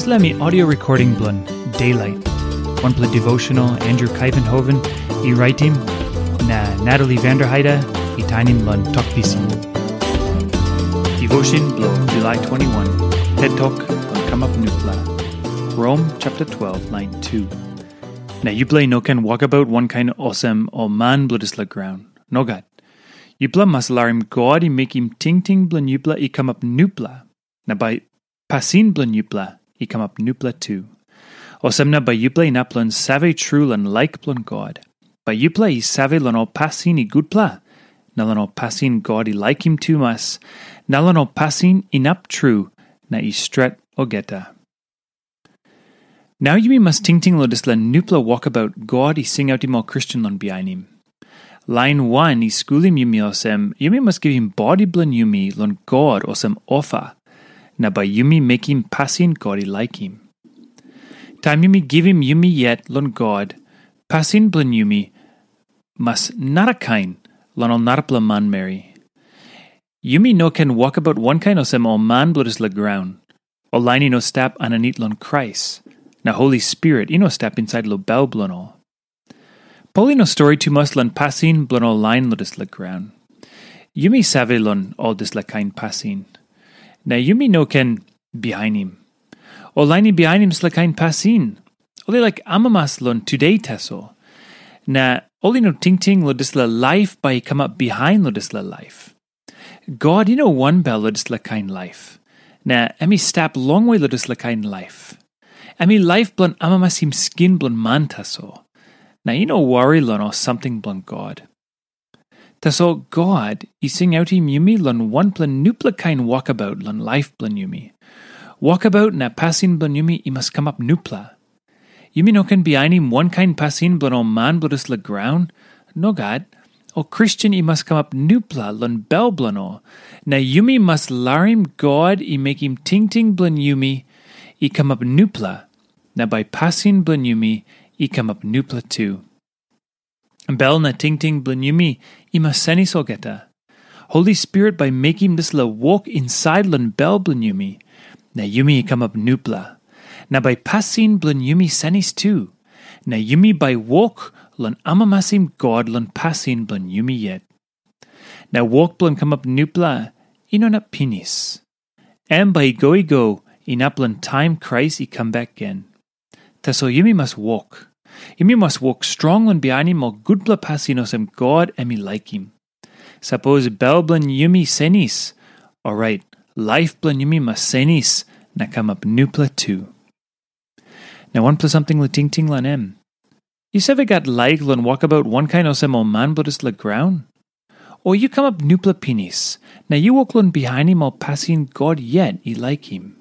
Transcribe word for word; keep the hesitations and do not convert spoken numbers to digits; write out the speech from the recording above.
Dispela mi audio recording bilong Daylight, wanpela devotional Andrew Kaivenhoven i raitim, na Natalie Vanderheide i tainim long Tok Pisin. Devotion bilong July twenty-one, Tet Tok long Kamap Nupela. Rom chapter twelve, line two. Na yupela i no ken wokabaut wankain olsem ol man bilong dispela graun. Nogat. Yupela mas larim God i mekim tingting bilong yupela i kamap nupela, na bai pasin bilong yupela i kamap nupela tu. Olsem na bai yupela inap long save tru long laik bilong God. Bai yupela i save long ol pasin i gutpela, na long ol pasin God i laikim tumas, na long ol pasin inap tru na i stret olgeta. Nau yumi mas tingting long dispela nupela wokabaut God i singautim ol Kristen long bihainim. Lain wan i skulim yumi olsem, yumi mas givim bodi bilong yumi long God olsem ofa, na bai yumi mekim pasin God i laikim. Taim yumi givim yumi yet long God, pasin bilong yumi mas narakain long ol narapela manmeri. Yumi no ken wokabaut wankain olsem ol man bilong dispela graun. Ol lain i no stap aninit long Krais, na Holi Spirit i no stap insait long bel bilong ol. Pol i no stori tumas long pasin bilong ol lain long dispela graun. Yumi save long ol dispela kain pasin, na yumi no ken bihainim. Ol lain i bihainim dispela kain pasin, ol i laik amamas long tude tasol, na ol i no tingting long dispela laip bai i kamap bihain long dispela laip. God i no wanbel long dispela kain laip, na em i stap longwe long dispela kain laip. Em i laip bilong amamasim skin bilong man tasol, na i no wari long ol samting bilong God. Tasol God i singautim yumi long wanpela nupela kain wokabaut long laip bilong yumi. Wokabaut na pasin bilong yumi i mas kamap nupela. Yumi no ken bihainim wankain pasin bilong ol man bilong dispela graun. Nogat. Ol Kristen i mas kamap nupela long bel bilong ol, na yumi mas larim God i mekim tingting bilong yumi i kamap nupela, na bai pasin bilong yumi i kamap nupela tu. Bel na tingting bilong yumi i mas senis olgeta. Holi Spirit bai mekim dispela wok insait long bel bilong yumi, na yumi i kamap nupela. Na bai pasin bilong yumi senis tu, na yumi bai wok long amamasim God long pasin bilong yumi yet. Na wok bilong kamap nupela i no inap pinis. Em bai i go i go inap long taim Krais i kam bek gen. Tasol yumi mas wok. Yumi mas wok strong long bihainim ol gutpela pasin olsem God em i laikim. Sapos bel bilong yumi senis, orait laip bilong yumi mas senis na kamap nupela tu. Na wanpela samting long tingting long em. Yu save gat laik long wokabaut wankain olsem ol man bilong dispela graun? O yu kamap nupela pinis, na yu wok long bihainim ol pasin God yet i laikim?